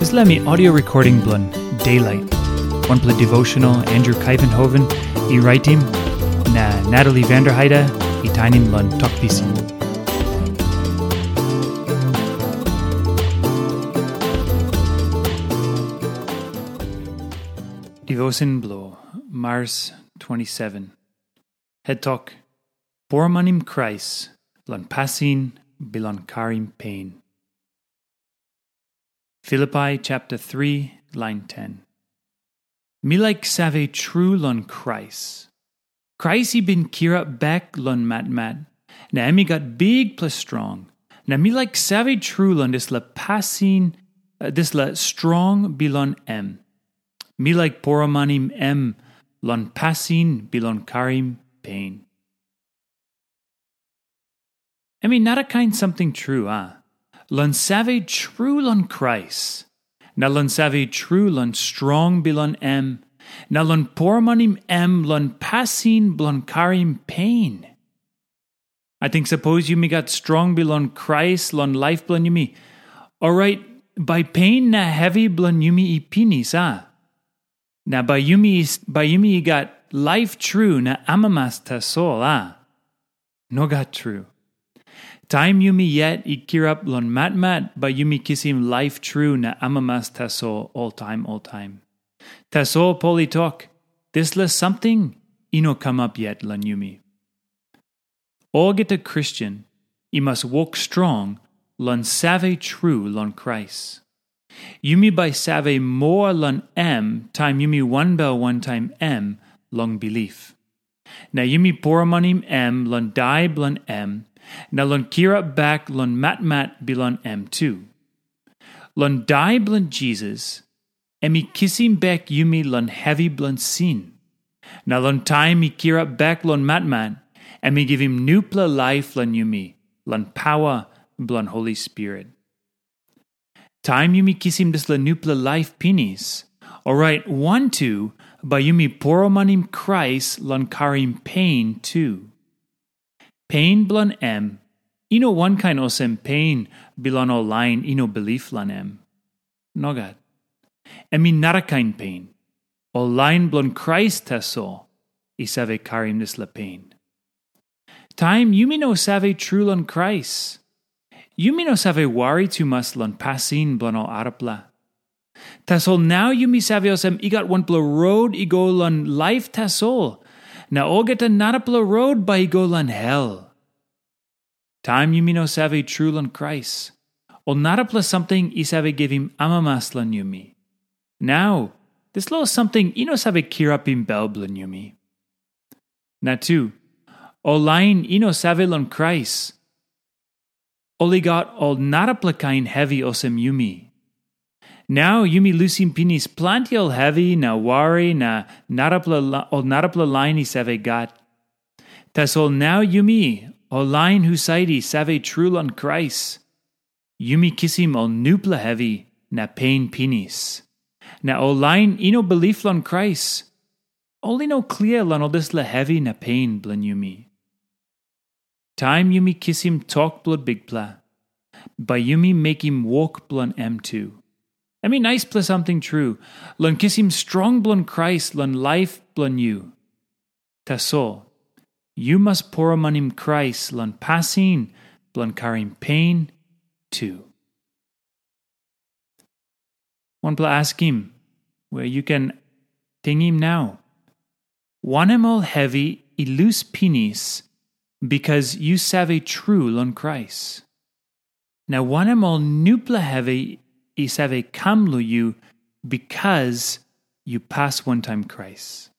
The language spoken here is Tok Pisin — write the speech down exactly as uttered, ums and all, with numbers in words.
Dispela mi audio recording bilong Daylight, wanpela devotional Andrew Kaivenhoven i raitim, na Natalie Vanderheide i tainim long Tok Pisin. Devotion bilong Mars twenty-seven. Het tok, Poromanim Krais long pasin bilong karim pen. Filipai chapter three, lain ten. Mi laik save tru long Krais. Krais i bin kirap bek long matmat, na em i gat bikpela strong, na mi laik save tru long dispela pasin, eh, dispela strong bilong em. Mi laik poromanim em long pasin bilong karim pen. Em i narakain samting tru, a? Long save tru long Krais, na long save tru long strong bilong em, na long poromanim em long pasin bilong karim pen. Ating sapos yumi gat strong bilong Krais long laip bilong yumi, orait bai pen na hevi bilong yumi i pinis, a? Na bai yumi, bai yumi i gat laip tru na amamas tasol, a? Nogat tru. Taim yumi yet i kirap long matmat, bai yumi kisim laip tru na amamas tasol oltaim oltaim. Tasol Pol i tok, dispela samting i no kamap yet long yumi. Olgeta Kristen i mas wok strong long save tru long Krais. Yumi bai save moa long em taim yumi wanbel wantaim em long bilip. Na yumi poromanim em long dai bilong em, na long kirap bek long matmat bilong em tu. Long dai bilong Jisas, em i kisim bek yumi long hevi bilong sin. Na long taim i kirap bek long matmat, em i givim nupela laip long yumi, long pawa bilong Holi Spirit. Taim yumi kisim dispela nupela laip pinis, orait wantu bai yumi poromanim Krais long karim pen tu. Pen bilong em i no wankain olsem pen bilong ol lain i no bilip long em. Nogat. Em i narakain pen. Ol lain bilong Krais tasol i save karim dispela pen. Taim yumi no save tru long Krais, yumi no save wari tumas long pasin bilong ol arapela. Tasol nau yumi save olsem i gat wanpela rot i go long laip tasol, na olgeta narapela rot bai i go long hel. Taim yumi no save tru long Krais, ol narapela samting i save givim amamas long yumi. Nau, dispela samting i no save kirapim bel bilong yumi. Na tu, ol lain i no save long Krais, ol i gat ol narapela kain hevi olsem yumi. Nau yumi lusim pinis planti ol hevi na wari na narapela la-, ol narapela lain i save gat. Tasol nau yumi, ol lain husat i save tru long Krais, yumi kisim ol nupela hevi na pen pinis. Na ol lain i no bilip long Krais, ol i no klia long ol dispela hevi na pen bilong yumi. Taim yumi kisim tok bilong Bikpela, bai yumi mekim wok bilong em tu. Em i naispela samting tru, long kisim strong bilong Krais long laip bilong yu. Tasol, yu mas poromanim Krais long pasin bilong karim pen tu. Wanpela askim we yu ken tingim nau. Wanem ol hevi i lus pinis bikas yu save tru long Krais? Na wanem ol nupela hevi i save kam long yu bikas yu pas wantaim Krais?